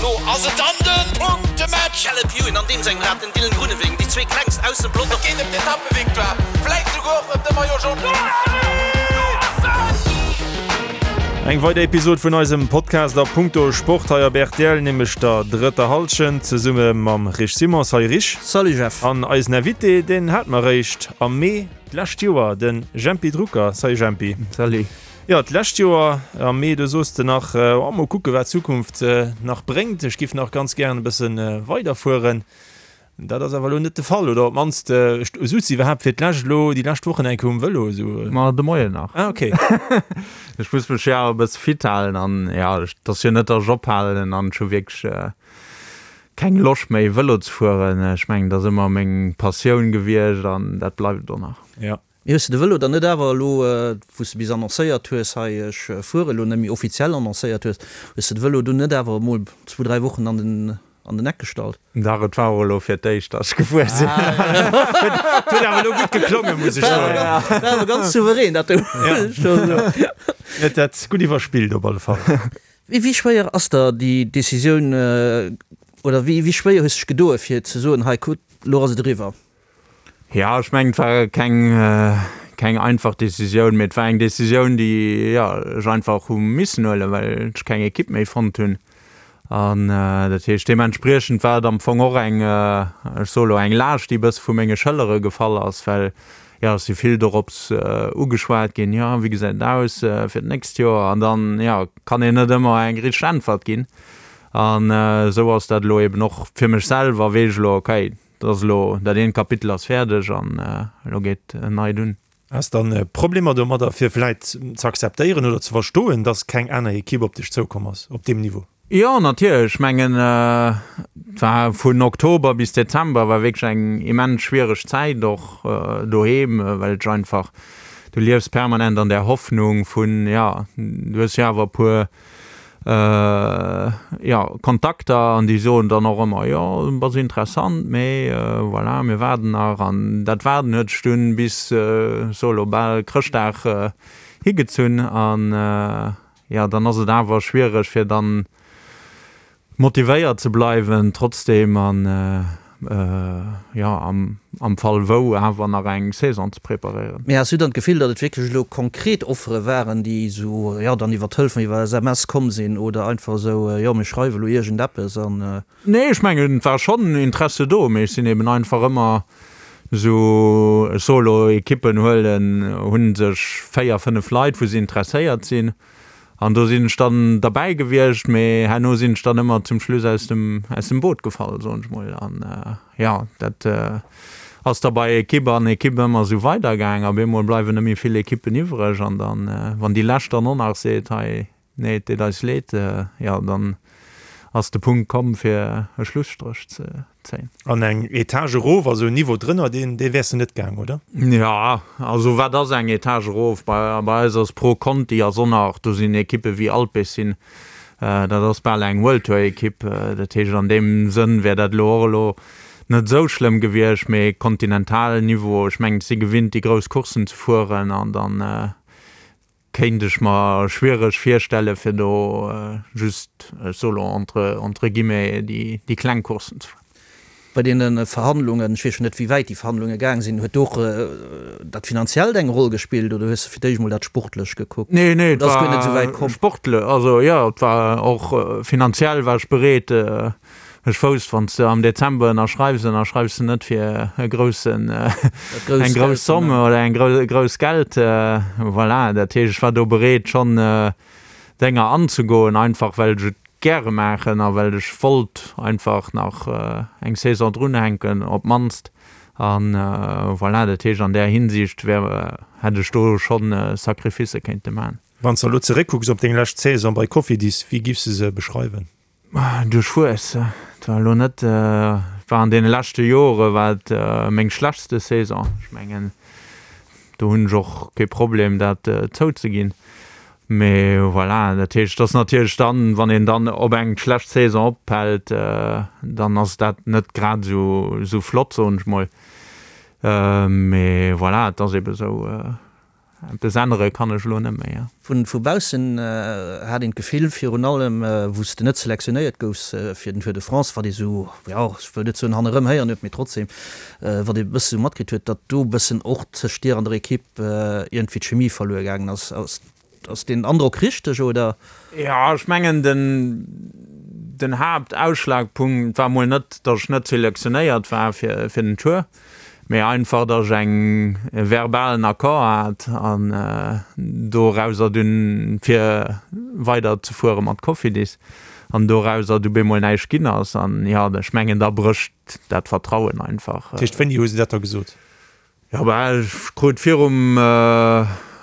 Elo ass et dann de Punktematch! Caleb Ewan an deem sengem Rad, den Dylan Groenewegen, déi zwee klengst aus dem Pelotong. Et geet ëm d'Etappevictoire, vläit souguer och ëm de Maillot Jaune. Eng weider Episod vun eisem Podcast a Punkto Sport hei op rtl, nämlech der drëtter Hallschent, zesumme mam Rich Simon. Salut Rich. Salut Jeff. An eisen Invité, deen hate mer eréischt am Mee d'lescht Joer, de Jempy Drucker. Salut Jempy. Salut. Jo, d'lescht Joer am Mee, do soos de nach, oh, mol kucke wat d'Zukunft nach bréngt, ech giff nach ganz gären e bësse weiderfueren. Dat ass awer elo net de Fall, oder op d'mannst, souz de iwwerhaapt fir d'lescht elo déi lescht Wochen eng Kéier um Vëlo esou? Ma de Moien nach. Ah, okay. Ech muss mech jo awer e bësse fit halen an jo, et ass jo net, datt ech ophalen an ech hu wierklech keng Loscht méi Vëlo ze fueren. Ech mengen, dat ass ëmmer meng Passioun gewiescht an dat bleift et och nach. Jo. Mee hues de de Vëlo dann net awer elo, wou s de bis annoncéiert hues, hei ech fuere elo net méi, offiziell annoncéiert hues, hues de de Vëlo dunn net awer emol zwou, dräi Wochen an den, an den Eck gestallt? Dach, et war och elo fir d'éischt, datt ech gefuer sinn. Et huet awer elo gutt geklongen, muss ech soen. War awer ganz souverän, dat do, muss ech scho soen. Huet dat gutt iwwerspillt op alle Fall. Wéi schwéier ass der déi Decisioun, oder wéi schwéier hues de dech gedoe fir ze soen, hei kuck, elo ass et eriwwer? Jo, ech mengen, et war keng, keng einfach Decisioun, mee et war eng Decisioun, déi, jo, ech einfach hu missen huelen, well ech keng Ekipp méi fonnt hunn. An dat heescht, deementspriechend war et am Fong och eng, ech soe lo eng Laascht, déi e bësse vu menge Schëllere gefall ass, well, jo, ech si vill dorops ugeschwat ginn, jo, wéi gesäit et aus fir d'nächst Joer? An dann, jo, kann een net ëmmer eng richteg Äntwert ginn. An esou ass dat elo eben och fir mech selwer, weess ech elo, okay, Dat ass elo, dat eent Kapitel ass fäerdeg an elo geet en neit un. Has dann Problemer domadder fir vläit ze akzeptéieren oder ze verstoen, dass keng aner Ekipp op dech zoukomm ass op deem Niveau? Jo, natierlech. Ech mengen, et war vun Oktober bis Dezember war wierklech eng immens schwiereg Zäit, och doheem, well ech einfach, du liefs permanent an där Hoffnung vun, jo, du hues jo awer e puer jo, Kontakter an déi soen dann och ëmmer, jo, bass interessant, mee voilà, mir waarden nach. An dat Waarden huet sech dunn bis, ech soe lo, bal Chrëschtdag higezunn. An jo, dann ass et awer schwiereg, fir dann motivéiert ze bleiwen trotzdeem an jo am Fall wou awer nach eng Saison ze preparéieren. Mee has du dann d'Gefill, datt et wierklech elo konkret Offere waren, déi esou jo dann iwwer Telefon, iwwer SMS komm sinn oder einfach esou jo mir schreiwe elo iergendeppes an. Nee, ech mengen et war schonn Interesse do, mee ech sinn eben einfach ëmmer esou, ech soe lo Ekippen huelen, hu sech 4, 5 Leit wou se interesséiert sinn An do sinn ech dann derbäi gewiescht, mee herno sinn ech dann ëmmer zum Schluss aus dem, aus dem Boot gefall, soen ech mol. An jo, dat ass da bei Ekipp an Ekipp ëmmer esou weidergaang. Op eemol bleiwen net méi vill Ekippen iwwreg an dann, wann déi lescht dann och nach seet, hei, nee, et deet eis leed, jo, dann ass de Punkt komm, fir e Schlusstréch ze zéien. An eng Etage erof, also en Niveau drënner, deen, dee wäers de net gaang, oder? Jo, also wat ass eng Etage erof? Bei, bei eis ass Pro Conti ass och nach, do sinn Ekippe wéi Alpecin, dat ass bal eng World Tour Ekipp. Dat heescht an deem Sënn wär dat elo och elo net esou schlëmm gewiescht, mee Kontinentalniveau, ech mengen, ech si gewinnt déi grouss Courssen ze fueren an dann, Kéint ech mer schwiereg virstellen fir do just, ech soe lo entre entre guillemets, déi déi kleng Courssen ze fueren. Bei deene Verhandlungen, ech weess jo net wéi wäit déi Verhandlunge gaang sinn, huet do och dat Finanziellt eng Roll gespillt oder hues de fir d'éischt mol dat Sportlech gekuckt? Nee, nee, et Oder ass guer net esou wäit komm? sportlech, also jo, et war och finanziell war ech bereet, Ech wousst, wann s de am Dezember ënnerschreifs, ënnerschreifs de net fir e groussen, eng grouss Somme oder eng grouss Geld. Voilà, dat heescht, ech war do bereet schonn Dénger anzegoen, einfach well ech et gäre maachen a well ech wollt einfach nach eng Saison drunhänken op d'mannst. A voilà, dat heescht, an där Hinsicht wär, hätt ech do schonn Sacrificë kéinte maachen. Wann s de elo zeréckkucks op deng lescht Saison bei Cofidis, wéi giffs de se beschreiwen? Duerchwuess. Et war elo net, et war an deene leschte Jore war et meng schlechtste Saison. Ech mengen, do hunn ech och kee Problem dat zouzeginn. Mee voilà, dat heescht, et ass natierlech dann, wann een dann op eng schlecht Saison ophält, dann ass dat net grad esou esou flott, soen ech mol. Mee voilà, et ass ebe sou. Eppes ännere kann ech elo net méi. Vu baussen hat een d'Gefill, virun allem wou s de net selektionéiert goufs fir den Tour de France, wat ee sou, jo, ech wëll net soen hannerëm héieren huet, mee trotzdem, wat ee bësse sou matkritt huet, datt do e bëssen och tëscht dir an der Ekipp iergendwéi d'Chemie verluer gaangen ass. Ass deen Androck richteg, oder? Jo, ech mengen den den Haaptausschlagpunkt war mol net, datt ech net selektionéiert war fir fir den Tour, mee einfach, datt ech eng e verbalen Accord hat an dorauser dunn fir weider ze fuere mat Cofidis an dorauser du bemol näischt ginn ass an jo, ech mengen da brécht dat Vertrauen einfach. Dat heescht, wéini hu se dat da gesot? Jo, bah, ech krut virum,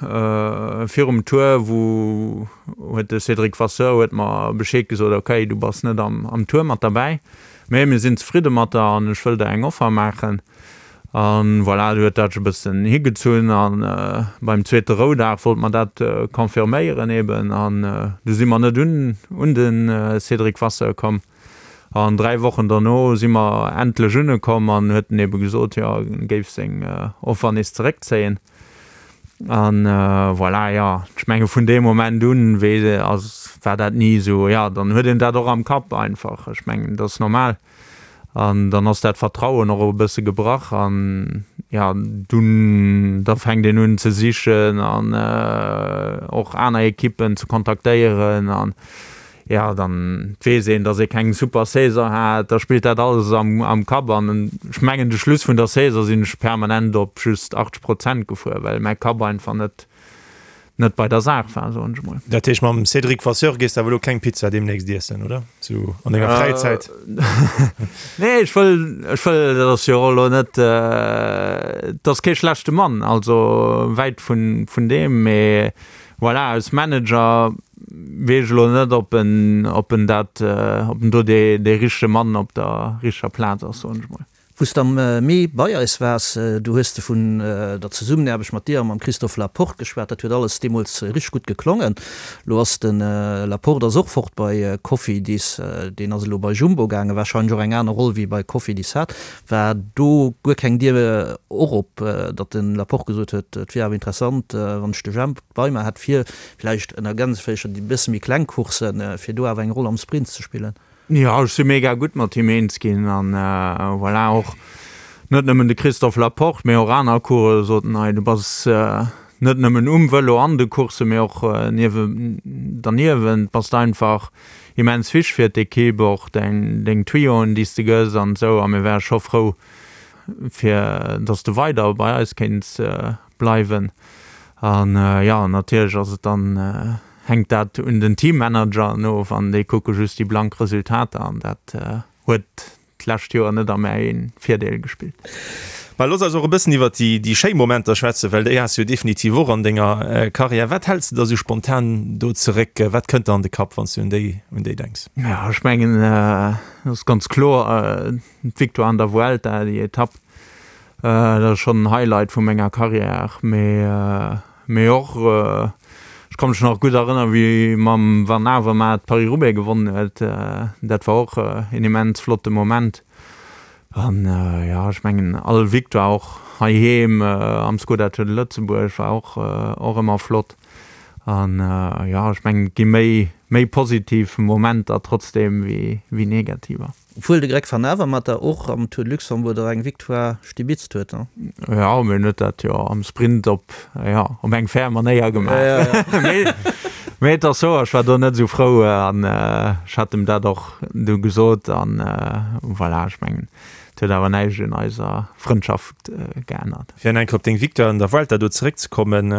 virum Tour, wou huet de Cédric Vasseur huet mer Bescheed gesot, ok, du bass net am, am Tour mat derbäi, mee mir sinn zefridde mat der an ech wëll der eng Offer maachen. An voilà, du huet dat sech e bëssen higezunn an beim zweete Roudag wollt mer dat confirméieren eben an du si mer net un, un de Cédric Vasseur komm. An 3 Wochen derno si mer endlech unekomm an huet en ebe gesot, jo, en géif seng Offer nees zeréckzéien. An voilà, jo, ech menge vun deem Moment un wee ass, war dat ni esou, jo, dann huet een dat och am Kapp einfach. Ech mengen, dat ass normal. An dann ass dat Vertrauen och e bësse gebrach an, jo, dunn, da fänkt een un ze sichen an och aner Ekippen ze kontaktéieren an, Jo, dann weess een, dass ee keng super Saison hat, da spillt dat alles am Kapp an ech mengen de Schluss vun der Saison sinn ech permanent op just 80 Prozent gefuer, well mäi Kapp einfach net net bei der Saach war, soen ech emol. Dat heescht mam Cédric Vasseur gees de awer elo keng Pizza deemnächst iessen, oder? Sou an denger Fräizäit? Nee, ech wëll, ech wëll, dat ass jo och elo net, et ass kee schlechte Mann, also wäit vun vun deem, mee Voilà, als Manager weess ech elo net, ob en, ob en dat, ob en do dee, dee richtege Mann op der richteger Plaz ass, soen ech mol. Wou s de am Mee bei eis waars, do hues de vun der Zesummenaarbecht mat dir a mam Christophe Laporte geschwat. Dat huet alles deemools richteg gutt geklongen. Elo ass de Laporte ass och fort bei Cofidis, deen ass elo bei Jumbo gaangen, warscheinlech och eng aner Roll wéi bei Cofidis hat. War do guer keng Dier och op, datt de Laporte gesot huet, et wier awer interessant, wann ech de Jemp bei mer hätt, fir villäicht ënner Gänsefüercher déi bësse méi kleng Courssen, fir do awer eng Roll am Sprint ze spillen? Jo, ech si mega gutt mat him eens ginn an voilà, och net nëmmen de Christophe Laporte, mee och aner Coureuren soten, hei du bass net nëmmen um Vëlo an de Courssen, mee och derniewent bass de einfach immens wichteg fir d'Ekipp, och däin, deng Tuyauxen, déi s de gëss an esou. A mir wäre scho frou, fir dass de weider bei eis kéints bleiwen. An jo, natierlech ass et dann, hänkt dat un den Teammanageren of an déi kucke just déi blank Resultater an dat huet d'lescht Joer net a mäi Virdeel gespillt. Mä looss eis och e bëssen iwwert déi schéi Momenter schwätzen, well déi has du jo definitiv och an denger Karriär. Wat häls de da sou spontan do zeréck? Wat kënnt der an de Kapp, wann s du un déi un déi denks? Jo, ech mengen, et ass ganz kloer d'Victoire an der Vuelta, déi Etapp, dat ass schonn en Highlight vu menger Karriär. Mee Mee och, ech ka mech nach gutt erënneren, wéi mam Van Avermaet Paris-Roubaix gewonnen huet. Dat war och een immens flotte Moment. An jo, ech mengen all Victoire och heiheem am Skoda Tour de Lëtzebuerg war och och ëmmer flott. An jo, ech mengen et gi méi méi positiv Momenter trotzdeem wéi wéi negativer. Obwuel de Greg Van Avermaet der och am Tour de Luxembourg der eng Victoire stibitzt huet, ne? Jo, mee en huet dat jo am Sprint op, jo, op eng fair Manéier gemaach. Mee, mee et ass sou, ech war do net esou frou an ech hat em dat och du gesot an voilà, ech mengen, et huet awer näischt un eiser Frëndschaft geännert. Fir nach eng Kéier op deng Victoire an der Vuelta do zeréckzekommen,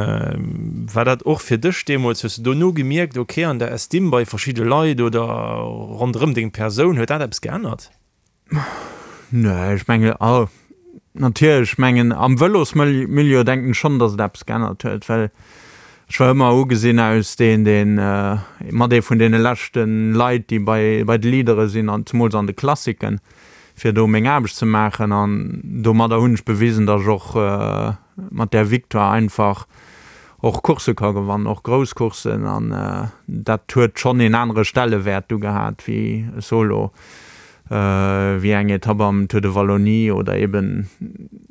war dat och fir dech deemools, hues de dono gemierkt, ok, an der Estime bei verschidde Leit oder ronderëm deng Persoun, huet dat eppes geännert? Nee, ech mengen, oh, natierlech, ech mengen am Vëlosmilieu denken ech schonn, datt et eppes geännert huet, well ech war ëmmer ugesinn aus deen, deen mat ee vun deene leschte Leit, déi bei bei de Leadere sinn an zemools an de Klassiken. fir do meng Aarbecht ze maachen an domadder hunn ech bewisen, datt ech och mat där Victoire einfach och Coursse ka gewannen, och grouss Courssen an dat huet schonn een anere Stellewäert du gehat wéi e Solo. Wéi eng Etapp am Tour de Wallonie oder eben.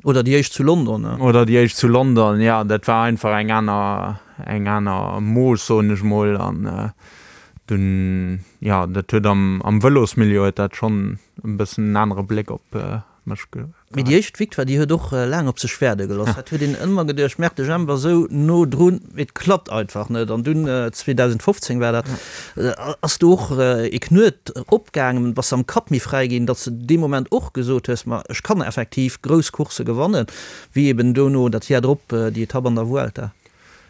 Oder déi éischt zu London. Oder déi éischt zu London, jo. Dat war einfach eng aner, eng aner Mooss, soen ech mol. An dunn, jo, dat huet am, am Vëlosmilieu huet dat schonn e bëssen en anere Bléck op mech ge. Mee déi éischt Victoire, déi huet och laang op sech waarde gelooss. Dat huet een ëmmer geduecht, merkt de Jemp ass esou no drun, mee et klappt einfach net. An dunn, 2015 war dat, ass do och ee Knuet opgaangen, bass de am Kapp méi fräi ginn, datt s de dee Moment och gesot hues, ma ech kann effektiv grouss Coursse gewannen, wéi eben dono dat Jar drop déi Etapp an der Vuelta.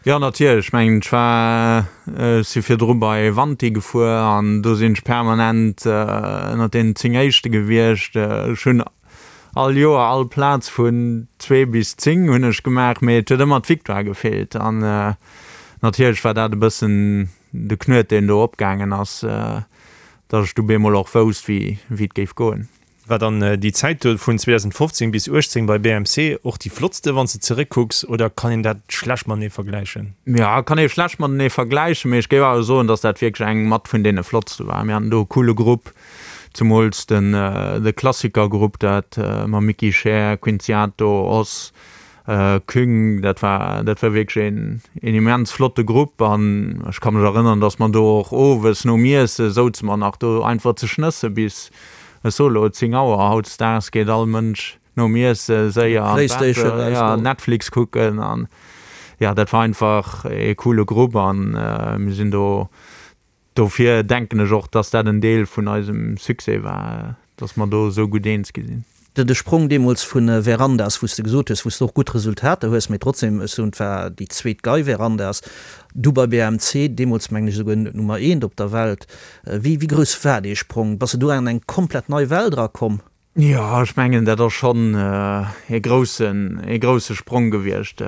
Jo natierlech, ech mengen ech war, ech si virdru bei Wanty gefuer an do sinn ech permanent ënnert deenen 10 éischte gewiescht. Ech hunn all Joer all Plaz vun 2 bis 10 hunn ech gemaach, mee et huet ëmmer d'Victoire gefeelt an natierlech war dat e bëssen de Knuet deen do opgaangen ass, datt ech du bemol och wousst wéi et géif goen. War dann déi Zäit do vun 2015 bis 18 bei BMC och déi flottste wann s de zeréckkucks oder kann een dat schlecht matenee vergläichen? Jo, kann ee schlecht matenee vergläichen, mee ech géif awer soen, dass dat wierklech eng mat vun deene flottste war. Mir haten do e coole Grupp, zemools den de Klassikergrupp, dat mam Micky Scheer, Quinziato, Oss, Küng, dat war, dat war wierklech een, een immens flotte Grupp an ech ka mech erënnern, dass mer do och owes nom Iesse souze mer nach do einfach ze schnësse bis, ech soe lo 10 Auer. Hautdesdaags geet all Mënsch nom Iesse séier an d'Bett, ja, Netflix kucken an ja, dat war einfach ee coole Grupp an mir sinn do Dofir denken ech och, dass dat en Deel vun eisem Succès war, dass mer do esou gutt eens gi sinn. De Sprong deemools vu Verandas, wou s de gesot hues, wou s de och gutt Resultater hues, mee trotzdem, ech soen, et war déi zweet Gei Verandas, du bei BMC, deemools mengen ech esouguer Nummer eent op der Welt. Wéi grouss war dee Sprong? Bass de do an eng komplett nei Welt erakomm? Jo, ech mengen, dat ass schonn ee groussen, ee grousse Sprong gewiescht.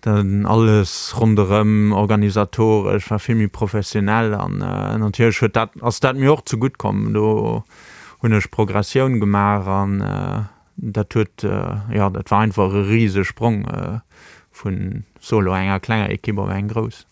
Dann alles ronderëm, organisatoresch, war vill méi professionell an natierlech huet dat, ass dat mir och zegutt komm. Do hunn ech Progressioun gemaach an dat huet, jo, dat war einfach e rise Sprong vun, solo, enger klenger Ekipp op eng grouss.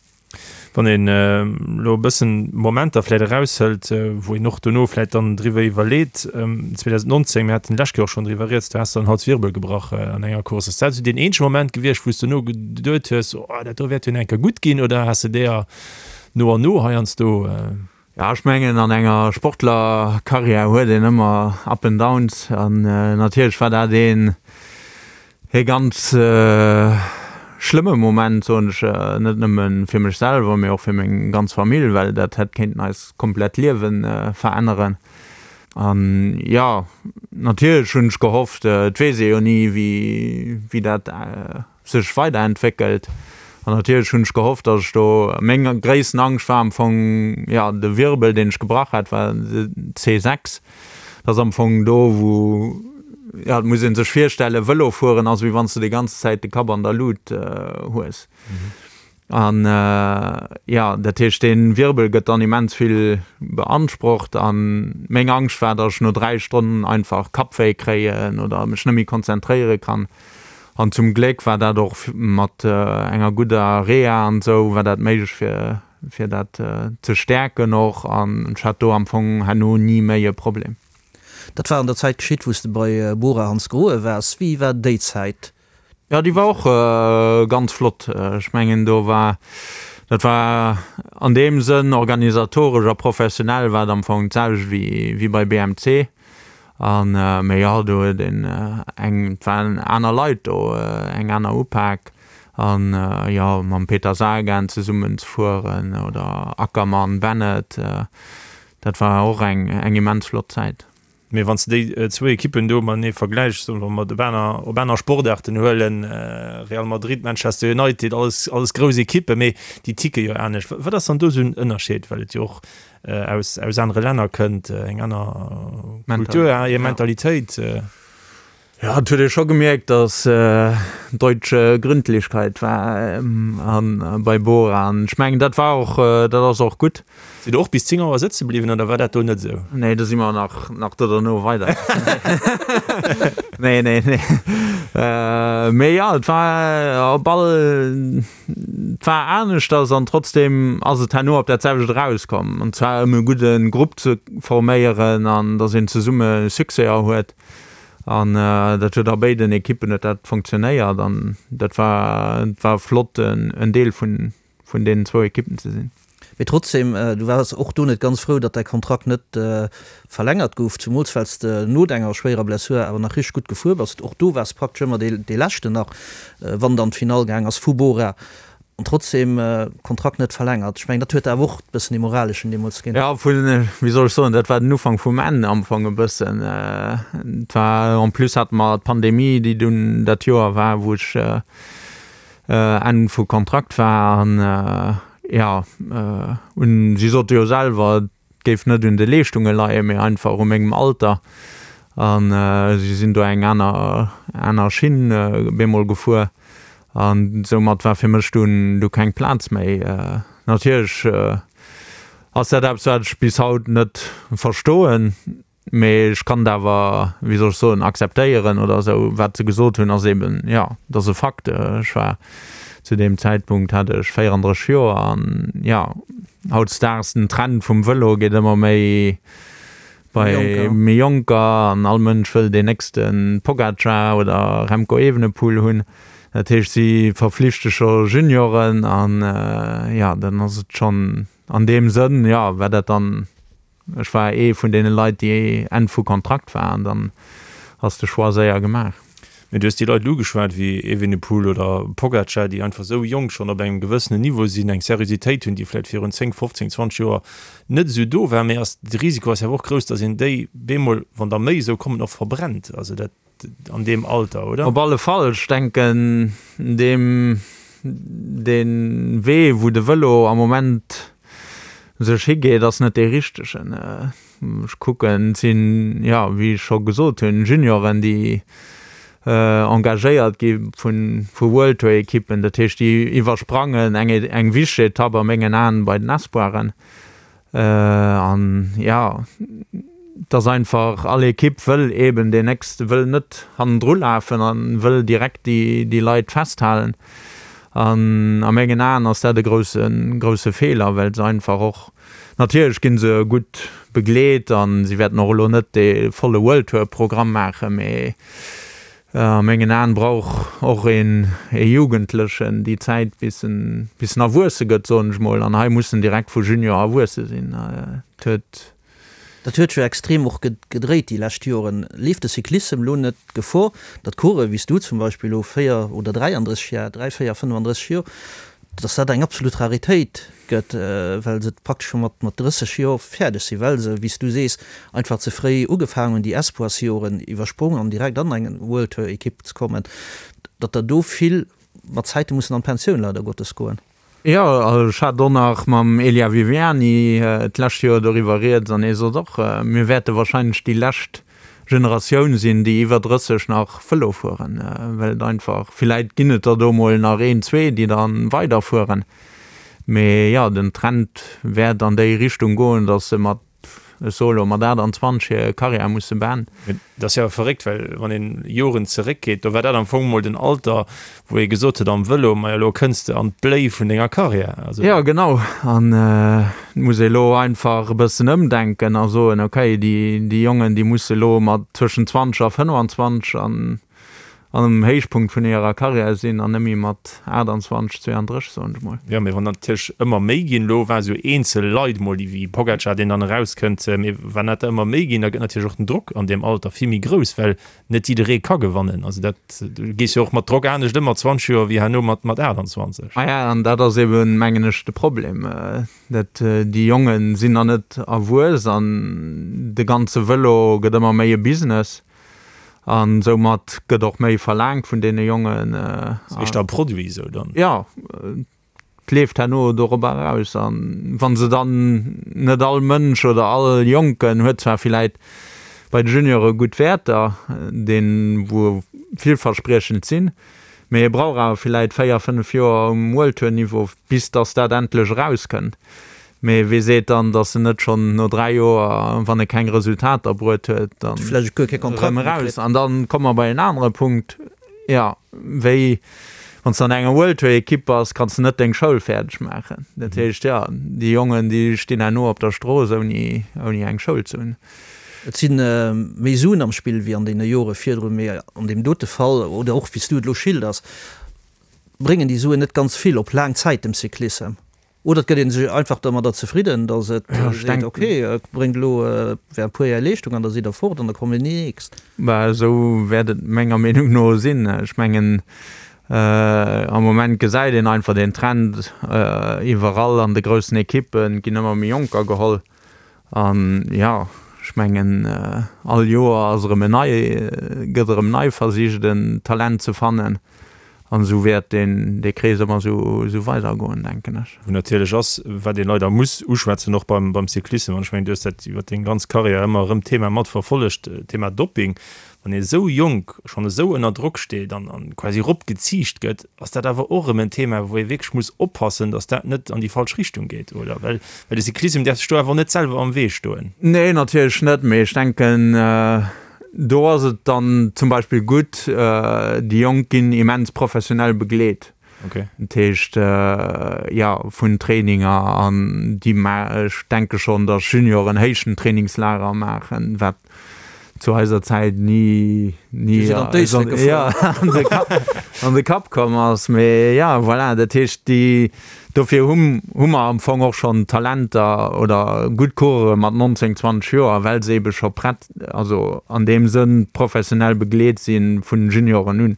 Wann een elo e bëssen Momenter vläit eraushëlt, wou een och dono vläit dann driwwer iwwerleet, 2019, mir haten d'lescht Kéier och schonn driwwer rieds, do has de den Halswirbel gebrach an enger Course. Ass dat esou deen eenzege Moment gewiescht, wou s de dono geduet hues, oh dat do wäert jo nach eng Kéier gutt ginn, oder has de deeër no an no heiansdo? Jo, ech mengen an enger Sportlerkarriär huet een ëmmer Up and Downs an natierlech war dat een ee ganz schlëmme Moment, soen ech, net nëmme fir mech selwer, mee och fir meng ganz Famill, well dat hätt kéinten eis komplett Liewe veränneren. An jo, natierlech hunn ech gehofft, et weess ee jo ni wéi wéi dat sech weiderentwéckelt. An natierlech hunn ech gehofft, datt ech do, meng gréissten Angscht war am Fong, jo, de Wirbel, deen ech gebrach hat, war de C6. Dat ass am Fong do, wou, jo, et muss ee sech virstellen, Vëlo fueren ass, wéi wann s de déi ganz Zäit de Kapp an der Lut hues. An, jo, dat heescht, dee Wirbel gëtt dann immens vill beansprucht. An meng Angscht war, datt ech no 3 Stonnen einfach Kappwéi kréien oder mech net méi konzentréiere kann. An zum Gléck war dat och mat enger gudder Reha an esou war dat méiglech fir fir dat ze stäerken och an ech hat do am Fong herno ni méi e Problem. Dat war an der Zäit geschitt wou s de bei Bora Hansgrohe waars. Wéi war déi Zäit? Jo déi war och ganz flott. Ech mengen do war, dat war an deem Sënn organisatoresch a professionell war et am Fong d'selwecht wéi wéi bei BMC. An mee jo, do huet een eng, et waren aner Leit do, eng aner Upak an jo mam Peter Sagan zesummen ze fueren oder Ackermann, Bennett, dat war och eng eng immens flott Zäit. Mee wann s de déi zwou Ekippen do matenee vergläichs, soen wa mer op aner op aner Sportaarten huelen, Real Madrid, Manchester United, alles alles grouss Ekippen, mee déi ticke jo anescht. Wat ass dann do esou en Ënnerscheed, well et jo och aus aus anere Länner kënnt, eng aner Kultur, hir Mentalitéit. Jo, et huet ee scho gemierkt, datt deutsche Gründlichkeit war bei Bora. An ech mengen, dat war och, dat ass och gutt. Sidd der och bis 10 Auer sëtze bliwwen oder war dat do net esou? Nee, do si mer nach, nach do derno weider. Nee, nee, nee. Mee jo, et war op all, et war aneschters an trotzdem ass et herno op dat selwecht erauskomm. An zwar ëm e gudde Grupp ze forméieren an datt een zesumme Succèser huet. An dat huet a béiden Ekippen huet dat funktionéiert an dat war, et war flott en Deel vun, vun deenen zwou Ekippen ze sinn. Mee trotzdem, du waars och do net ganz frou, datt däi Kontrakt net verlängert gouf, zumools well s de no denger schwéierer Blessur awer nach richteg gutt gefuer bass. Och do waars praktesch ëmmer dee Leschten nach, wann et an d'Finall gaang ass vu Bora. An trotzdem, Kontrakt net verlängert. Ech mengen, dat huet der awer och e bëssen dee moraleschen deemools ginn. Jo, vun, wéi soll ech soen, dat war den Ufank vum Enn am Fong e bëssen. Et war, en plus hate mer d'Pandemie, déi dunn dat Joer war, wou ech Enn vu Kontrakt war an jo, un, si sote jo selwer, et géif net un de Leeschtunge leien, mee einfach u mengem Alter an si sinn do eng aner aner Schinn bemol gefuer an soumat war fir mech dunn du keng Plaz méi. Natierlech ass dat eppes wat ech bis haut net verstoen. Mee ech kann et awer, wéi soll ech soen, akzeptéieren oder esou. Wat se gesot hunn, ass eben, jo, et ass e Fakt. Ech war zu deem Zäitpunkt hat ech 34 Joer an, jo, hautdesdaags den Trend vum Vëlo geet ëmmer méi bei méi Jonker an all Mënsch wëll deen nächste Pogacar oder Remco Evenepoel hunn. Dat heescht, si verflichte scho Junioren an, jo, dann ass et schonn an deem Sënn, jo, war dat dann Ech war ee vun deene Leit, déi Enn vu Kontrakt war an dann ass de Choix séier gemaach. Mee du hues déi Leit elo ugeschwat, wéi Evenepoel oder Pogacar, déi einfach esou jonk schonn op engem gewëssenen Niveau sinn, eng Seriositéit hunn, déi vläicht virun 10, 15, 20 Joer net esou do war. Mee ass de Risiko ass jo awer och grouss, datt een déi bemol, wann der méi esou kommen, och verbrennt. Also dat an deem Alter, oder? Op alle Fall. Ech denken, deem, dee Wee, wou de Vëlo am Moment sech higeet, ass net dee richtegen. Ech kucken, et sinn, jo, wéi ech scho gesot hunn, Junioren, déi engagéiert gi vu World-Tour-Ekippen. Dat heescht, déi iwwersprangen eng, eng wichteg Etapp a mengen Aen bei den Espoiren. An jo, et ass einfach, all Ekipp wëll eeben deen nächste, wëll net hannendru lafen a wëll direkt déi Leit festhalen. An a mengen Aen ass dat e grousse, grousse Feeler, well se einfach och, natierlech gi se gutt begleet a si wäerten och elo net dee volle World Tour Programm maachen, mee A mengen Aen brauch och een e Jugendlechen déi Zäit bis en bis en erwuesse gëtt, soen ech mol. An hei muss en direkt vu Junior erwuesse sinn. Et huet. Dat huet jo extrem och gedréit déi lescht Joren. Leeft de Cyclissem lo net Gefor, datt Coureuren wéi s du zum Beispill elo 4 oder 33 Jar, 3, 4, 35 Joer, dass dat eng absolut Raritéit gëtt, well se praktesch scho mat 30 Joer fäerdeg sinn, well se, wéi s du sees, einfach ze fréi ugefaangen hunn, déi Espoirsjoren iwwersprong an direkt an eng World Tour Ekipp ze kommen, datt der do vill mat Zäite mussen an d'Pensioun leider Gottes goen. Jo, ech hat och nach mam Elia Viviani d'lescht Joer doriwwer rieds an hie sot och, mir wäerte wahrscheinlech déi lescht Generatioun sinn, déi iwwer 30 nach Vëlo fueren, well et einfach, villäit ginn et der do mol nach een, zwee, déi da weiderfueren, mee jo, den Trend wäert an déi Richtung goen, datt se mat, ech soe lo, mat 28 hir Karriär musse beenden. Dat ass jo awer verréckt, well wann een Joren zeréckgeet, do war dat am Fong mol den Alter, wou ee gesot huet am Vëlo, majo elo kënns de an d'Bléi vun denger Karriär. Also. Jo genau, an et muss ee elo einfach e bëssen ëmdenken a soen, okay, déi déi Jongen déi musse elo mat tëschent 20 a 25 an am Héichpunkt vun hirer Karriär sinn an net méi mat 28, 32 soen ech mol. Jo, mee wann natierlech ëmmer méi ginn, elo war esou eenzel Leit mol déi wéi Pogacar, deen dann erauskënnt, mee wann dat der ëmmer méi ginn, da gëtt natierlech och den Drock an deem Alter vill méi grouss, well net jidderee ka gewannen. Also dat, du gees jo och mat Drock anescht ëm mat 20 Joer wéi herno mat mat 28. Maja, an dat ass eben, mengen ech, de Problem, dat déi Jonge sinn nach net erwuess an de ganze Vëlo gëtt ëmmer méi e Business an soumat gëtt och méi verlaangt vun deene Jongen. Ass éischter e Produit esou dann? Jo. Et leeft herno dorobber eraus. A wa se dann, net all Mënsch oder all Jonken huet zwar villäit. bei de Juniore gutt Wäerter, deen wou villverspriechend sinn, mee e brauch awer villäit 4, 5 Joer um World Tour Niveau bis dass dat endlech erauskënnt. Mee wee seet dann, dass en net schonn no 3 Joer, wann e keng Resultater bruet huet, dann erëm eraus? An dann komme mer bei en anere Punkt, jo, wéi wann s de an enger World Tour Ekipp bass, kanns de net deng Schoul fäerdeg maachen. Dat heescht, jo, déi Jongen, déi stinn herno op der Strooss ouni eng Schoul ze hunn. Et si méi Suen am Spill wéi an deene Jore virdrun, mee an deem dote Fall, oder och wéi s du et elo schilders, bréngen déi Suen net ganz vill op laang Zäit dem Cyclissem. Oder et gëtt ee sech einfach domadder zefridden, datt et seet, ok, bréngt elo während e puer Jar Leeschtung an da sidd Der fort an da kommen déi nächst. Bah, esou wäert et menger Meenung no sinn. Ech mengen, am Moment gesäit een einfach den Trend, iwwerall an de groussen Ekippen ginn ëmmer méi Jonker geholl. An jo, ech mengen, all Joer ass erëm en nei, gëtt erëm nei versicht en Talent ze fannen. An esou wäert deen, dee Krees ëmmer esou, esou weidergoen, denken ech. Wou natierlech ass, wat ee leider muss uschwätzen, och beim, beim Cyclissem, an ech mengen, du hues dat iwwer deng ganz Karriär ëmmer erëm d'Thema mat verfollegt, Thema Dopping. Wann ee esou jonk schonn esou ënner Drock steet an quasi eropgeziicht gëtt, ass dat awer och erëm en Thema, wou ee wierklech muss oppassen, datt dat net an déi falsch Richtung geet, oder? Well de Cyclissem däerf sech do awer och net selwer am Wee stoen. Nee, natierlech net, mee ech denken, do ass et dann zum Beispill gutt, déi Jonk ginn immens professionell begleet. Dat heescht, jo, vun Traininger an déi, ech denke schonn, datt Junioren héichen Trainingslager maachen, wat zu eiser Zäit ni ni an de Kapp komm ass. Mee ja, voilà, dat heescht déi dofir hu hu mer am Fong och schonn Talenter oder gutt Coureure mat 19, 20 Joer, well se ebe scho prett, also an deem Sënn professionell begleet si vun Junioren un,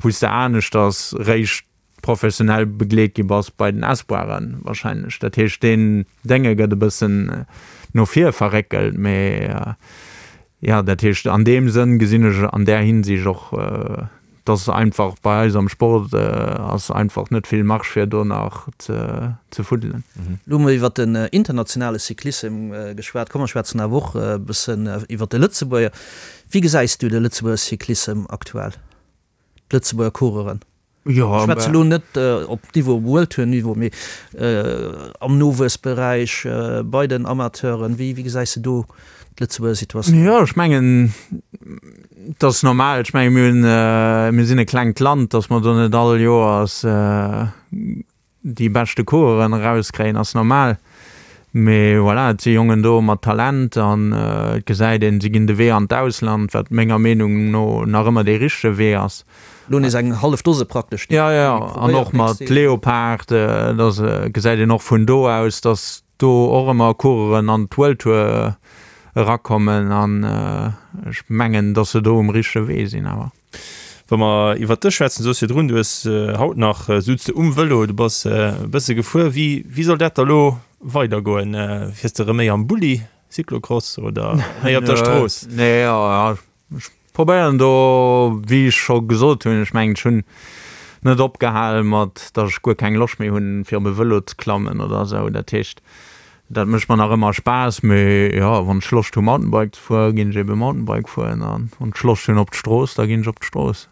wou s de aneschters réischt professionell begleet gi bass bei den Espoiren wahrscheinlech. Dat heescht deen Dénge gëtt e bëssen no vir verréckelt, mee jo dat heescht an deem Sënn gesinn ech an där Hinsicht och, dass einfach bei eis am Sport ass einfach net vill Marge fir do nach ze fuddelen. Elo hu mer iwwert den internationale Cyclissem geschwat, komm mer schwätzen awer och e bëssen iwwert de Lëtzebuerger. Wéi gesäis du de Lëtzebuerger Cyclissem aktuell? d'Lëtzebuerger Coureuren? Jo, Ech schwätze elo net op Niveau World Tour Niveau, mee am Nowuessberäich, bei den Amateuren. Wéi gesäis de do d'Lëtzebuerger Situatioun? Jo, ech mengen, et ass normal. Ech menge mir hunn, mir sinn e klengt Land, datt mer do net all Joers déi beschte Coureuren erauskréien ass normal, mee voilà, et si Jongen do mat Talent an et gesäit een, si ginn de Wee an d'Ausland, wat menger Meenung no nach ëmmer dee richtege Wee ass. Lo nees eng hallef Dose praktesch, déi Jo, jo, an och mat Leopard, da gesäit een och vun do aus, datt do och ëmmer Coureuren an d'World Tour erakommen an ech mengen, datt se do um richtege Wee sinn awer. Wa mer iwwert dech schwätzen, du soos virdrun, du hues haut nach souz de um Vëlo, du bass e bësse gefuer. Wéi, wéi soll dat da lo weidergoen? Fiers de erëm méi am Bulli, Cyclocross oder méi op der Strooss? Nee, jo, ech probéieren do, wéi ech scho gesot hunn, ech mengen, ech hunn net opgehal mat, datt ech guer keng Loscht méi hunn, fir op e Vëlo ze klammen oder esou. Dat heescht, Dat mécht mer nach ëmmer Spaass, mee jo, wann ech Loscht hu Mountainbike ze fueren, ginn ech ebe Mountainbike fueren an wann ech Loscht hunn op d'Strooss, da ginn ech op d'Strooss.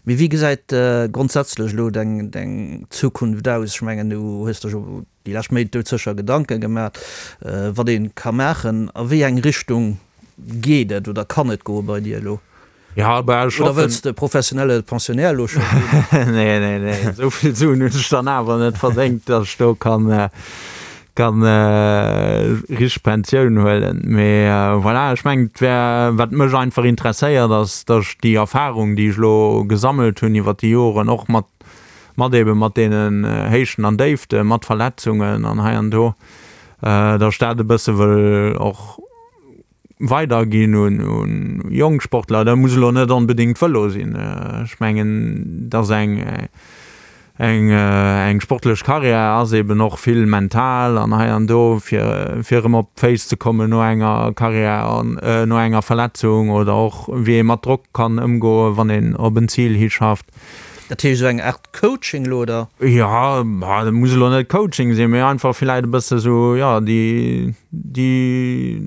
Mee wéi gesäit grondsätzlech elo deng deng Zukunft aus? Ech mengen, du hues der jo déi lescht Méint doudsécher Gedanke gemaat, wat ee ka maachen. A wéi eng Richtung geet et oder kann et goe bei dir elo? Ja, bah, ech Oder wëlls de professionelle Pensionnaire elo scho ginn? Nee, nee, nee, esou vill Suen hunn ech dann awer net verdéngt, datt ech do kann, kann richteg Pensioun huelen. Mee voilà, ech mengen, et wär, wat mech einfach interesséiert, ass, datt ech déi Erfahrung, déi ech elo gesammelt hunn iwwer déi Joren, och mat, mat eebe mat deenen Héichten an Déiften, mat Verletzungen an hei an do, datt ech dat e bësse wëll och weiderginn un jonk Sportler. Dat muss elo net onbedéngt Vëlo sinn. Ech mengen, dass eng eng eng sportlech Karriär ass eben och vill mental an hei an do, fir fir erëm op d'Féiss ze kommen no enger Karriär an no enger Verletzung oder och wéi ee mat Drock kann ëmgoen, wann een op en Zil hischafft. Dat heescht esou eng Art Coaching elo, oder? Jo, dat muss elo net Coaching sinn, mee einfach villäit e bësse sou, jo, déi, déi,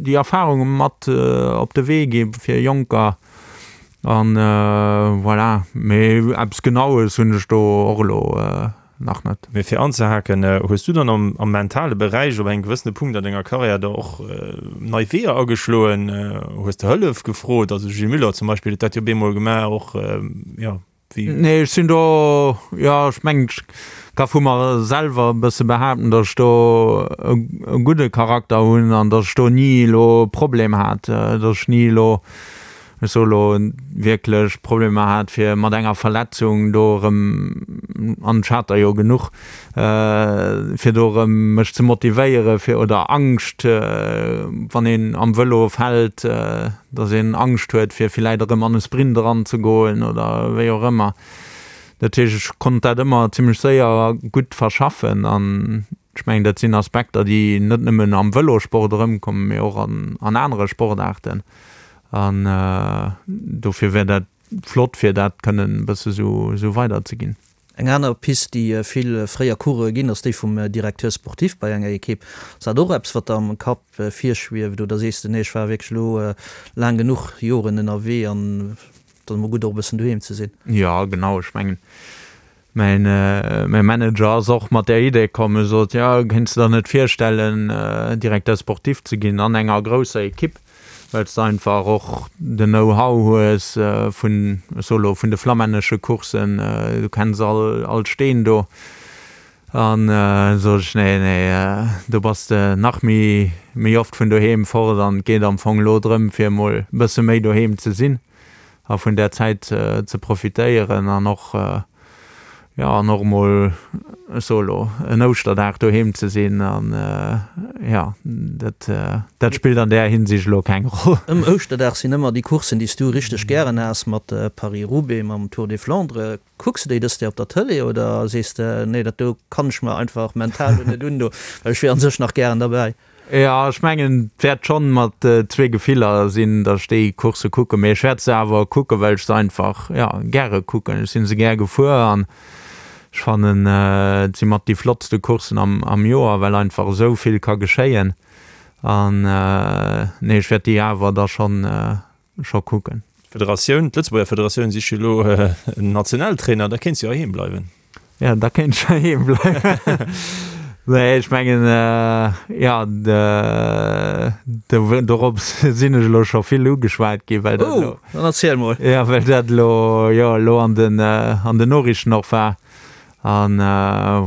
déi Erfarunge mat op de Wee gi fir Jonker an voilà. Mee eppes Genaues hunn ech do och elo nach net. Mee fir anzehaken, hues du dann am mentale Beräich op engem gewëssene Punkt an denger Karriär da och nei Weeër ageschloen? Hues de Hëllef gefrot? Also de Gilles Muller zum Beispill huet dat jo bemol gemaach och, jo, wéi. Nee, ech sinn do, jo, ech mengen, ech ka vu mer selwer e bësse behaapten, datt ech do e gudde Charakter hunn an datt ech do ni elo Problem hat, datt ech ni elo ech soe lo, wierklech Problemer hat, fir mat enger Verletzung do erëm, an ech hat der jo genuch, fir do erëm mech ze motivéieren, fir, oder Angscht, wann een am Vëlo fält, datt een Angscht huet, fir villäit erëm an e Sprint eranzegoen oder wéi och ëmmer. Dat heescht, ech konnt dat ëmmer zimlech séier a gutt verschaffen an ech mengen, dat sinn Aspekter, déi net nëmmen am Vëlosport erëmkommen, mee och an anere Sportaarten. An dofir wär dat flott, fir dat kënnen e bësse sou weiderzeginn. Eng aner Pist, déi vill fréier Coureuren ginn, ass déi vum Directeur sportif bei enger Ekipp. Ass dat och eppes, wat der am Kapp virschwieft oder sees de, nee, ech war wierklech elo laang genuch Joren ënnerwee an et ass emol gutt och e bëssen doheem ze sinn? Jo, genau. Ech mengen, Mäin Manager ass och mat där Idee komm. E sot, jo, kéints de der net virstellen, Directeur sportif ze ginn an enger grousser Ekipp, well s de einfach och den Know-how hues vun, ech soe lo, vun de flammännesche Courssen, du kenns all all d'Steen do. An sot ech, nee, nee, do bass de nach méi méi oft vun doheem fort an et geet am Fong elo drëm, fir emol e bësse méi doheem ze sinn. a vun där Zäit ze profitéieren an och, jo, an och emol, ech soe lo, en Ouschterdag doheem ze sinn an, jo, dat, dat spillt an där Hinsicht elo keng Roll. Ëm Ouschterdag sinn ëmmer déi Courssen, déi s du richteg gären has, mat Paris-Roubaix, mam Tour des Flandres. Kucks de déi dëst Joer op der Tëlee oder sees de, nee, dat do kann ech mer einfach mental lo net un do, well ech wier an sech nach gären derbäi? Jo, ech mengen et wäert schonn mat zwee Gefiller sinn, datt ech déi Coursse kucken, mee ech wäert se awer kucken, well ech se einfach, jo, gäre kucken. Ech si se gär gefuer an ech fannen, et si mat déi flottste Courssen am am Joer, well einfach esou vill ka geschéien. An nee, ech wäert déi awer da schonn scho kucken. D'Federatioun, d'Lëtzebuerger Federatioun sicht jo elo en Nationaltrainer, da kéints du jo heiheem bleiwen. Jo, da kéint ech heiheem bleiwen. Nee, ech mengen, jo, dorop sinn ech elo scho vill ugeschwat ginn, well dat elo. Oh, dann erziel mol. Jo, well dat elo, jo, elo an den, an den Noriichten och war. An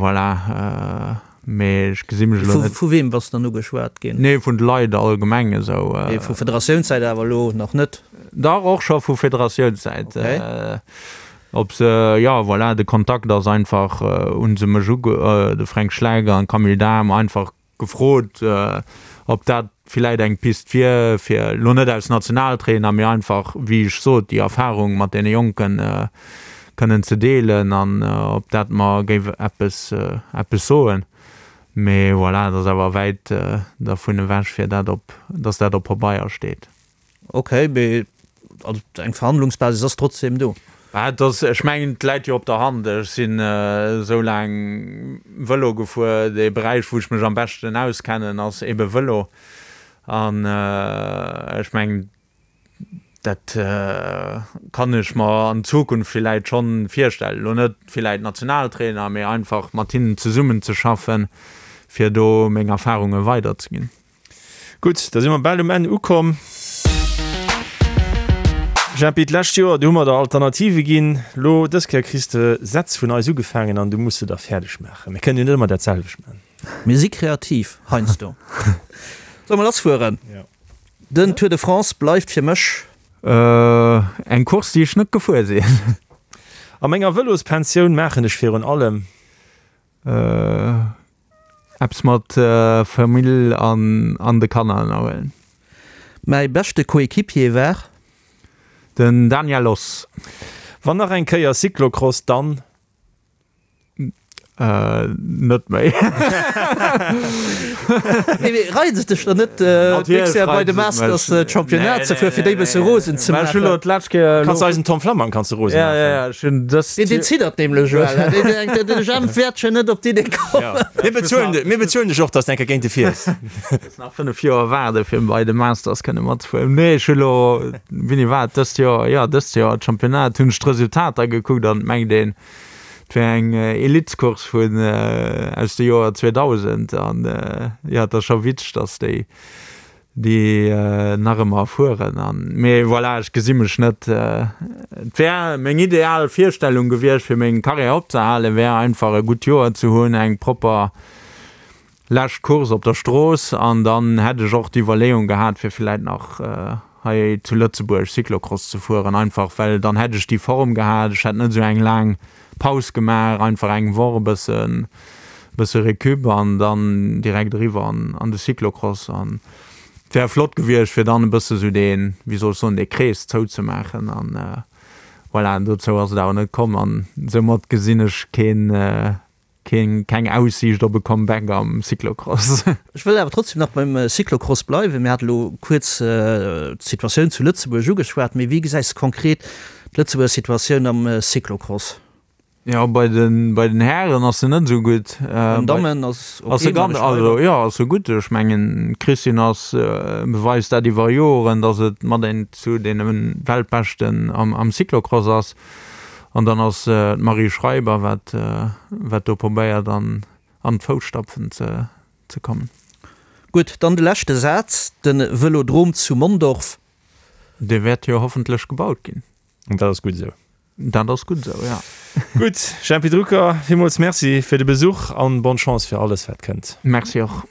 voilà. Mee ech gesi mech elo net. Vu weem bass de dann ugeschwat ginn? Nee, vun de Leit allgemeng esou. Mee vu Federatiounssäit awer elo nach net? Dach, och scho vu Federatiounssäit. Okay. Ob se, jo, voilà, de Kontakt ass einfach, hu se mech uge, de Fränk Schleck an d'Camille Dahm einfach gefrot, ob dat villäit eng Pist wier, fir elo net als Nationaltrainer, mee einfach, wéi ech sot, déi Erfarung mat deene Jonken kënnen ze deelen an ob dat mer géif eppes, eppes soen. Mee voilà, et ass awer wäit dervun ewech, fir dat op, dass dat op Pabeier steet. Ok, mee also eng Verhandlungsbasis ass trotzdem do. Bah, et ass, ech mengen, et läit jo op der Hand. Ech sinn esou laang Vëlo gefuer. Dee Beräich, wou ech mech am beschten auskennen, ass ebe Vëlo. An ech mengen, Dat kann ech mer an Zukunft villäit schonn virstellen. Elo net villäit Nationaltrainer, mee einfach mat hinnen zesummen ze schaffen, fir do meng Erfarunge weiderzeginn. Gutt, da si mer bal um Enn ukomm. Jempi, d'lescht Joer, do hu mer der Alternative ginn. Lo dës Kéier kriss de Sätz vun eis ugefaangen an du muss se da fäerdeg maachen. Mir kënnen jo net ëmmer dat selwecht maachen. Mir si kreativ heiansdo. Solle mer lassfueren? Den Tour de France bleift fir mech. Eng Course, déi ech net gefuer sinn. A menger Vëlospensioun maachen ech virun allem. Eppes mat Famill an de Kanner ënnerhuelen. Mäi beschte Coéquipier war. Den Daniel Oss. Wann nach eng Kéier Cyclocross, dann. Net méi. Nee, mee reizt et dech dann net, d'nächst Joer bei de Masters d'Championnat ze fueren, fir déi e bësse rosen ze maachen? Ech hunn elo d'lescht Kéier. Kanns eisen Tom Flammang kanns de rosen maachen. Ja, ja, ja, ech hunn dëst. Deen, deen ziddert nämlech elo. Deen denkt, de Jemp wäert schon net op d'Idee kommen. Mir bezuelen, mir bezuelen dech och, dass de eng Kéier géint e fiers. Muss nach 5 Joer waarde fir bei de Masters kënne matzefueren. Nee, ech hunn elo, wéini war et, dëst Joer, jo, dëst Joer d'Championnat, hunn ech d'Resultater gekuckt an et mengt een, Et wär eng Elitecourse vun aus de Joer 2000 an jo et ass scho witzeg dass déi déi nach ëmmer fueren an mee voilà ech gesi mech net. Et wär meng ideal Virstellung gewiescht fir meng Karriär opzehalen wär einfach e gutt Joer ze hunn, eng propper lescht Course op der Strooss an dann hätt ech och d'Iwwerleeung gehat fir villäit nach hei zu Lëtzebuerg Cyclocross ze fueren, einfach well dann hätt ech déi Form gehat, ech hätt net esou eng laang Paus gemaach, einfach eng Woch e bëssen bësse Récup an dann direkt eriwwer an an de Cyclocross an et wär flott gewiescht fir dann e bësse sou deen, wéi soll ech soen, dee Krees zouzemaachen an voilà, dozou ass et awer net komm an soumat gesinn ech keen Keen, keng Aussiicht op e Comeback am Cyclocross. Ech wëll awer trotzdem nach beim Cyclocross bleiwen. Mir hate lo kuerz d'Situatioun zu Lëtzebuerg ugeschwat, mee wéi gesäis de konkret d'Lëtzebuerger Situatioun am Cyclocross? Jo, bei den, bei den Hären ass se net esou gutt. Bei den Dammen ass ok, ass se ganz, also jo, ass se gutt. Ech mengen, d'Christine ass, beweist dat iwwer Joren, datt et mat een zu deene Weltbeschten am, am Cyclocross ass. An dann ass d'Marie Schreiber, wat, wat do probéiert an, an d'Fousstapfen ze, ze kommen. Gutt, dann de leschte Saz, De Vëlodrom zu Mondorf. Dee wäert jo hoffentlech gebaut ginn. An dat ass gutt esou. Dat ass gutt esou, ja. Gutt, Jempy Drucker, villmools Merci fir de Besuch an bonne Chance fir alles wat kënnt. Merci och.